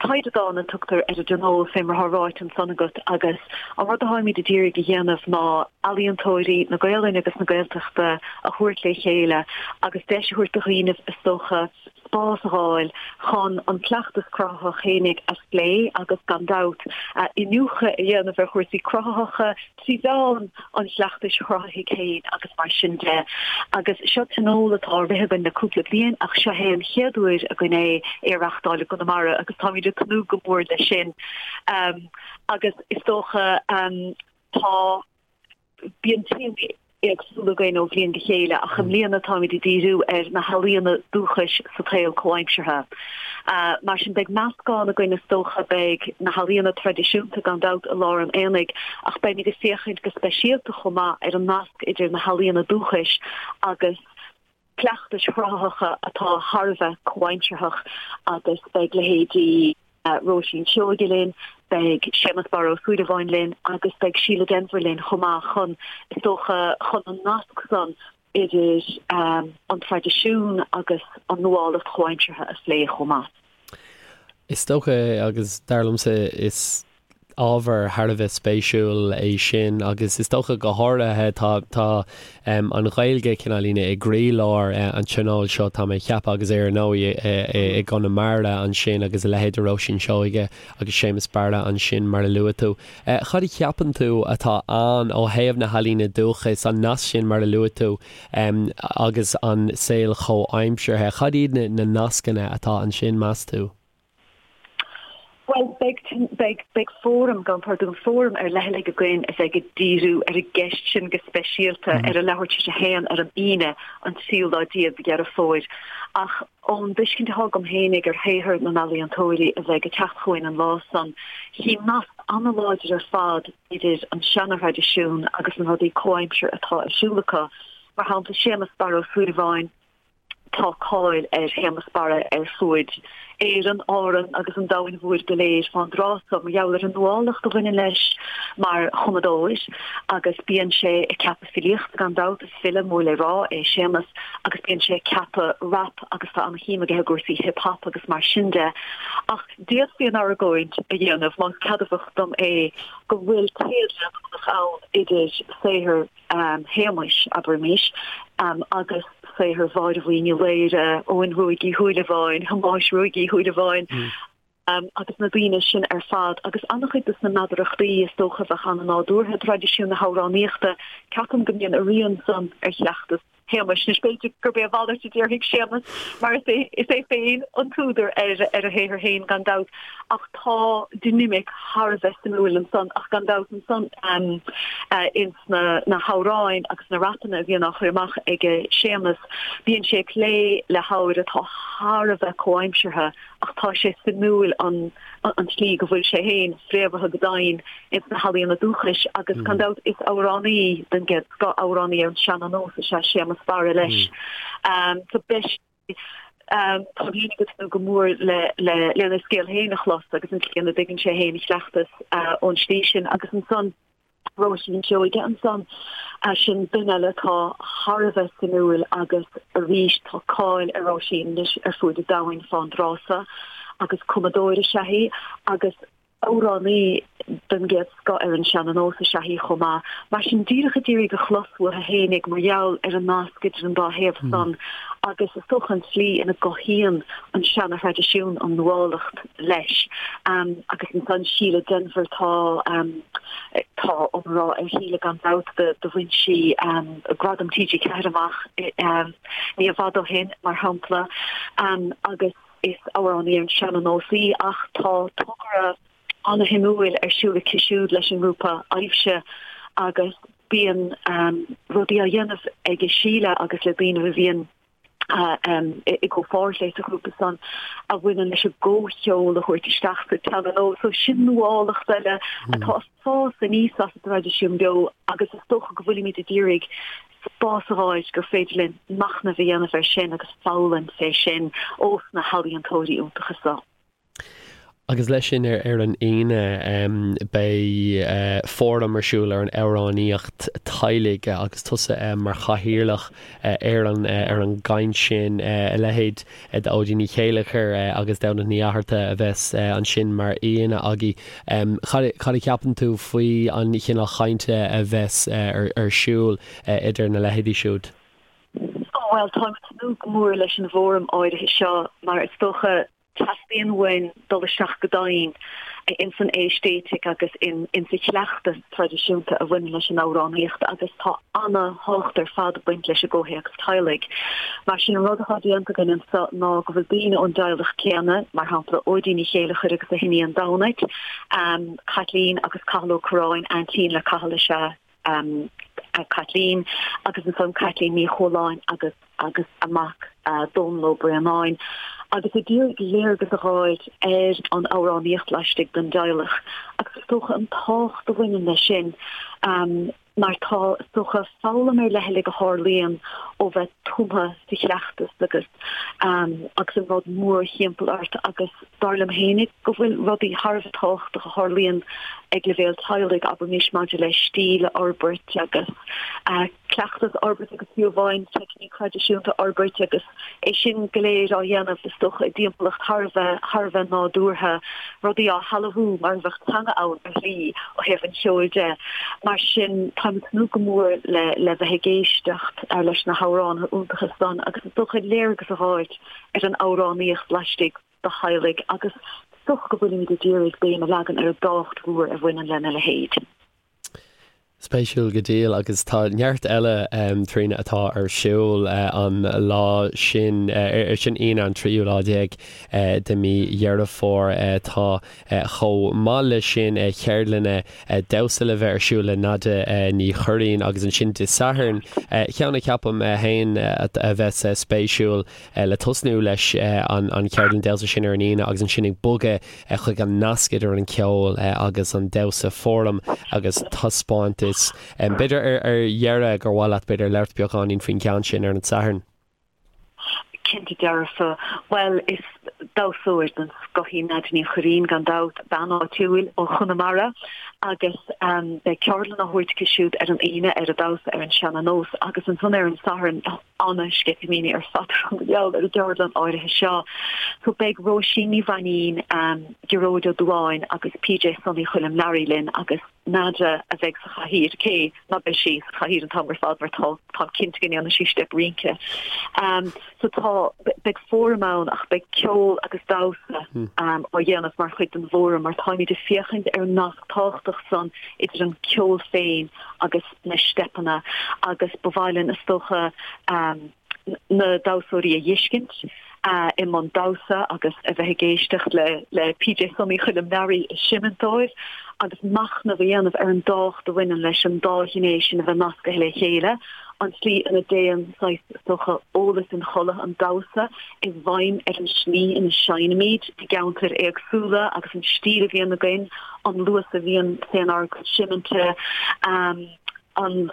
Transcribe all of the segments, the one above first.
Taighde Dán a tugtar ar an dtionól, fé mar atá ráite ansan agat, agus an rud atáimid ag iarraidh a dhéanamh ná ealaíontóirí na Gaolainne agus na Gaeltachta a thabhairt le chéile agus deis a thabhairt do dhaoinibh, is dócha, spás a dh'fháil chun an cleachtas cruthaitheach fhéinig a phlé agus, gan dabht, iniúchadh a dhéanamh ar chúrsaí cruthaitheacha trí mheán an chleachtais chruthaithigh féin agus mar sin de. Agus seo tionól atá á rith againn le cúpla bliain ach seo é an chéad uair againn é é a reachtáil i gConamara agus táimid ag tnúth go mór leis sin. Agus is dócha tá. Bíonn téamaí éagsúla againn ó bhliain go chéile ach i mbliana táimid ag díriú ar na healaíona dúchais sa tsaol comhaimseartha. Mar sin beidh meascán againn is dócha, beidh na healaíona traidisiúnta gan dabht i lár an aonaigh ach beimid ag féachaint go speisialta chomh maith ar an nasc idir na healaíona dúchais agus cleachtais chruthaitheacha atá thar a bheith comhaimsearthach agus beidh leithéidí Róisín Seoige linn, beidh Séamus Barra Ó Súilleabháin linn agus beidh Síle Denvir linn chomh maith chun, is dócha, chun an nasc san idir an traidisiún agus an nuálacht chomhaimseartha a phlé chomh maith. Is dócha, agus dar liomsa, is ábhar thar a bheith spéisiúil é sin agus is dócha go háirithe tá tá an Ghaeilge cineáilín i gcroílár an tionóil seo tá mé ag ceapadh agus ar ndóigh i gConamara ansin agus a leithéid de Róisín Seoige agus Séamus Barra ansin mar a luaigh tú. Cad a cheapann tú atá ann ó thaobh na healaíne dúchais, an nasc sin mar a luaigh tú agus an saol chomhaimseartha, cad iad na nascanna atá ansin meas tú? Bhuel, beidh, beidh, beidh fóram, gabhaim pardún, fóram ar leithligh againn a bheidh ag díriú ar an gceist sin go speisialta ar a leathuair tar éis a haon ar an Aoine, an tríú lá déag de Dheireadh Fómhair. Ach ón dtuiscint atá agam fhéinig ar shaothar na n-ealaíontóirí a bheidh ag teacht chugainn an lá san, chím nasc an-láidir ar fad idir an seana-thraidisiún agus na rudaí comhaimseartha atá ar siúl acu. Mar shampla, Séamus Barra Ó Súilleabháin, Tá cáil ar Shéamus Barra ar fuaid Éireann, Árann agus an domhain mhóir go léir fán dtráth so mar gheall ar an nuálacht a bhaineann leis mar chumadóir agus bíonn sé ag ceapadh filíochta gan dabht, is file mór le rá é Séamus agus bíonn sé ag ceapadh rap agus tá an-shuim aige i gcúrsaí hip hop agus mar sin de. Ach d'fhéadfaí an argóint a dhéanamh, más ceadmhach dom é, go bhfuil téad leanúnach ann idir saothar Shéamuis, abraimis, agus saothar Mháire Bhuí Ní Laoire, Eoghain Ruaidh Uí Shúilleabháin, Thomáis Ruaidh Uí Shúilleabháin, agus na daoine sin ar fad, agus an-chuid de na meadarachtaí is dócha a bheadh an-nádúrtha i dtraidisiún na hamhránaíochta, ceapaim go mbíonn a rian san ar chleachtas Shéamuis. Anois, b'fhéidir gurb é a mhalairt a déarfaidh Séamus, mar is é is é féin an t-údar ar ar a shaothar féin, gan dabht, ach tá dinimic thar a bheith suimiúil ansan, ach gan dabht ansan ins na na hamhráin agus na rapanna a bhíonn á chur amach ag Séamus, bíonn sé ag plé le hábhair atá thar a bheith comhaimseartha ach tá sé suimiúil an an tslí go bhfuil sé féin fréamhaithe go domhain ins na healaíona dúchais agus gan dabht is amhránaí den gcéad scoth, amhránaí ar an seana-nós is ea Séamus Barra leis. So beidh sé, táim féin ag tnúth go mór le lena scéal féin a chlos agus an tslí ina dtuigeann sé féin a chleachtas ón slí sin agus ansan Róisín Seoige ansan, sin duine eile atá thar a bheith suimiúil agus arís tá cáil ar Róisín anois ar fuaid an domhain fán dtráth so agus cumadóir is ea í agus amhránaí den gcéad scoth ar an seana-nós is ea í chomh maith. Mar sin díreach ag iarraidh a chlos uaithi fhéinig mar gheall ar an nasc idir an dá thaobh san agus is dócha an tslí ina gcothaíonn an seana-thraidisiún an nuálacht leis. Agus ansan Síle Denvir tá tá iomrá ar Shíle gan dabht do bhain sí Gradam TG4 amach ní i bhfad ó shin mar shampla agus is amhránaí ar an seana-nós í ach tá togra ana-shuimiúil ar siúl aici siúd leis an ngrúpa Aibhse agus bíonn rudaí á dhéanamh ag Síle agus le daoine a bhíonn i gcomhpháirt léi sa ghrúpa san a bhaineann leis an gcomhcheol a thabhairt isteach sa tseana-nós. So sin nuálacht eile atá ag fás aníos as an dtraidisiún beo agus is dócha go bhfuilimid ag iarraidh spás a fháil gur féidir linn machnamh a dhéanamh air sin agus foghlaim fé sin ós na healaíontóirí iontacha so. Agus leis sin ar an Aoine beidh fóram ar siúl ar an amhránaíocht teaghlaigh agus tusa mar chathaoirleach ar an ar an gcaint sin. A leithéid d'Óidín Ní Chéilleachair agus Damhnait Ní Fhatharta a bheas ansin mar aíonna agaibh. Cad a cheapann tú faoi an chineál chainte a bheas ar siúl idir na leithéidí siúd? Bhuel, táim ag tnúth go mór leis an bhfóram áirithe seo mar is dócha Teastaíonn uainn dul isteach go domhain ins an aeistéitic agus ins an chleachtas traidisiúnta a bhaineann leis an amhránaíocht agus tá ana-thábhacht ar fad ag baint leis an gcomhthéacs teaghlaigh. Mar sin an rud atá déanta againn anso ná go bhfuil daoine ón dteaghlach céanna, mar shampla Óidín Ní Chéilleachair agus a hiníon Damhnait, Caitlín agus Cathal Ó Curráin, aintín le Cathal is ea Caitlín agus ansan Caitlín Ní Chualáin agus agus a mac Dónal Ó Braonáin agus ag iarraidh léargas a dh'fháilt ar an amhránaíocht laistigh den dteaghlach agus is dócha an tábhacht a bhaineann leis sin mar tá is dócha foghlaim ar leithligh a tharlaíonn ó bheith tumtha sa chleachtas agus agus an rud mórthimpeall ort agus Dar liom fhéinig go bhfuil rudaí thar a bheith tábhachtach a tharlaíonn ag leibhéal teaghlaigh, abraimis maidir le stíl a fhorbairt agus cleachtas a fhorbairt agus fiú amháin teicníc thraidisiúnta a fhorbairt agus é sin go léir á dhéanamh is dócha i dtimpeallacht thar a bheith thar a bheith nádúrtha, rudaí á shealbhú mar a bheadh teanga ann ar shlí ó thaobh an cheoil de. Mar sin táim ag tnúth go mór le le bheith ag éisteacht leis na hamhránaithe iontacha san agus is dócha léargas a dh'fháilt ar an amhránaíocht laistigh de theaghlaigh agus is dócha go bhfuilimid ag iarraidh béim a leagan ar an dtábhacht mhór a bhaineann lena leithéid. Spéisiúil go diail agus tá neart eile Tríona atá ar siúl an lá sin, sin Aoine an tríú lá déag de mí Dheireadh Fómhair. Tá chomh maith leis sin ceardlanna damhsa le bheith ar siúl le Nadia Ní Churraoin agus ansin Dé Sathairn, ceann a cheapaim féin a bheas spéisiúil le tosnú leis an cheardlann damhsa sin ar an Aoine agus ansin ag bogadh chuig an nasc idir an ceol agus an damhsa, fóram agus taispeántas. B'fhéidir ar dheireadh gur mhaith leat b'fhéidir labhairt beagáinín faoin gceann sin ar an Satharn. Cinnte dearfa. Bhuel, is damhsóir den scoth í Nadia Ní Churraoin, gan dabht, bean áitiúil ó Chonamara agus beidh ceardlann á thabhairt aici siúd ar an Aoine ar an damhsa ar an seana-nós agus ansan ar an Satharn tá ana-sceitimíní ar fad orm mar gheall ar an gceardlann áirithe seo. So beidh Róisín Ní Mhainín, Gearóid Ó Dubháin agus PJ Sonaí Choilm Learaí linn agus Nadia a bheidh sa chathaoir, cé ná beidh sí sa chathaoir an t-am ar fad mar tá, táim cinnte go ndéanfaidh sí steip rince. So tá, beidh fóram ann ach beidh ceol agus damhsa á dhéanamh mar chuid den bhfóram mar táimid ag féachaint ar an nasc tábhachtach san idir an ceol féin agus na steipeanna agus ba mhaith linn is dócha na damhsóirí a dh'fheiscint i mbun damhsa agus a bheith ag éisteacht le le PJ Sonaí Choilm Learaí ag seimint dóibh agus machnamh a dhéanamh ar an dtábhacht a bhaineann leis an dá ghné sin a bheith nascaithe le chéile, an tslí ina dtéann saghas, is dócha, eolas inchodlaithe an damhsa i bhfeidhm ar an slí ina seinnimid i gceantair éagsúla agus an stíl a bhíonn againn, an luas a bhíonn fénár gcuid seiminte. an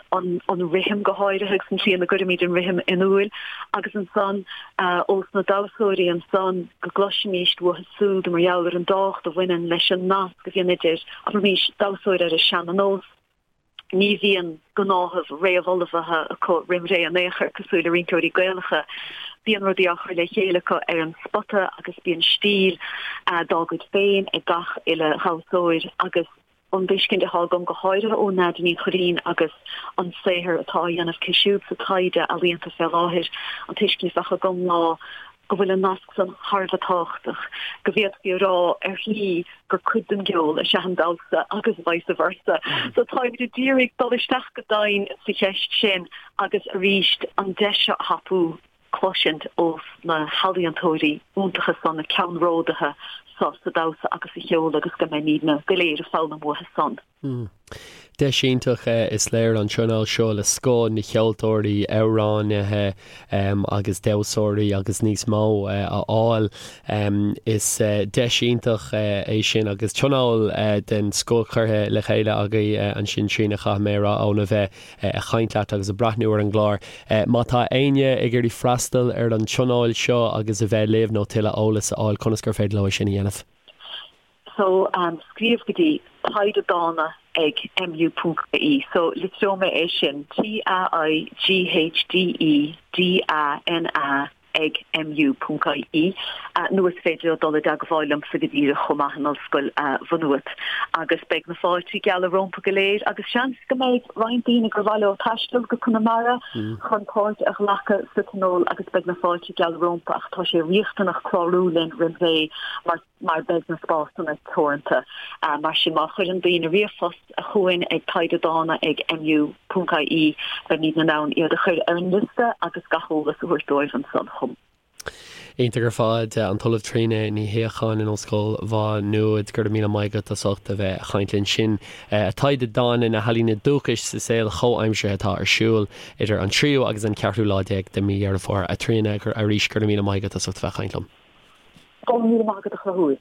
rithim go háirithe agus an tslí ina gcuirimid an rithim in iúil agus ansan ós na damhsóirí ansan go gcloisfimíst uathu súd mar gheall ar an dtábhacht a bhaineann leis an nasc a bhíonn idir, abraimís, damhsóir ar an seana-nós, ní bhíonn gnáthamh réamhullmhaithe acu roim ré in aon chor cosúil le rinceoirí Gaelacha. Bíonn rudaí á chur le chéile acu ar an spota agus bíonn stíl dá gcuid féin ag gach uile dhamhsóir agus an tuiscint atá agam, go háirithe ó Nadia Ní Churraoin agus an saothar atá á dhéanamh aici siúd sa taighde ealaíonta fé láthair, an tuiscint a bheadh agam ná go bhfuil an nasc san thar a bheith tábhachtach, go bhféadfaí a rá ar shlí gur cuid den gceol is ea an damhsa agus vice versa. So táimid ag iarraidh dul isteach go domhain sa cheist sin agus arís an deis seo a thapú. cloisint ós na healaíontóirí iontacha san, na ceannródaithe so sa damhsa agus sa cheol agus go mbeimídne go léir ag foghlaim uathu san. Deis iontach is léir an tionól seo le scoth na cheoltóirí, amhránaithe agus damhsóirí agus níos mó a fháil. Is deis iontach é sin agus tionól den scoth curtha le chéile agaibh ansin Tríona chaithfidh mé a rá óna bheith ag caint leat agus ag breathnú ar an gclár. Má tá éinne ag iarraidh freastal ar an tionól seo agus a bheith libh nó tuilleadh eolas a fháil, conas gur féidir leo é sin a dhéanamh? So scríobh go dtí Taighde Dána ag mu ponc ie. So litreoidh mé é sin, T-A-I-G-H-D-E-D-A-N-A ag mu ponc ie. Nó is féidir leo dul i dteagmháil liomsa go díreach chomh maith in Ollscoil Mhaigh Nuad. Agus beidh na fáiltí geala rompu go léir agus seans go mbeidh roinnt daoine gur mhaith leo taisteal go Conamara chun páirt a ghlacadh sa tionól agus beidh na fáiltí geala rompu ach tá sé riachtanach clárú linn roimh ré mar mar beidh na spásanna teoranta. Mar sin, má chuireann daoine ríomhphost chugainn ag taighdedána ag mu ponc ie, beimid in ann iad a chur ar an liosta agus gach eolas a thabhairt dóibh ansan chomh. Iontach ar fad, an tOllamh Tríona Ní Shíocháin in Ollscoil Mhá Nuad, go raibh míle maith agat as ucht a bheith ag caint linn. Sin Taighde Dána, na healaíona dúchais sa saol chomhaimseartha atá ar siúl idir an tríú agus an ceathrú lá déag de mhí Dheireadh Fómhair. A Thríona, arís, go raibh míle maith agat as ucht a bheith ag caint liom. Go raibh míle maith agat a Chonchúir.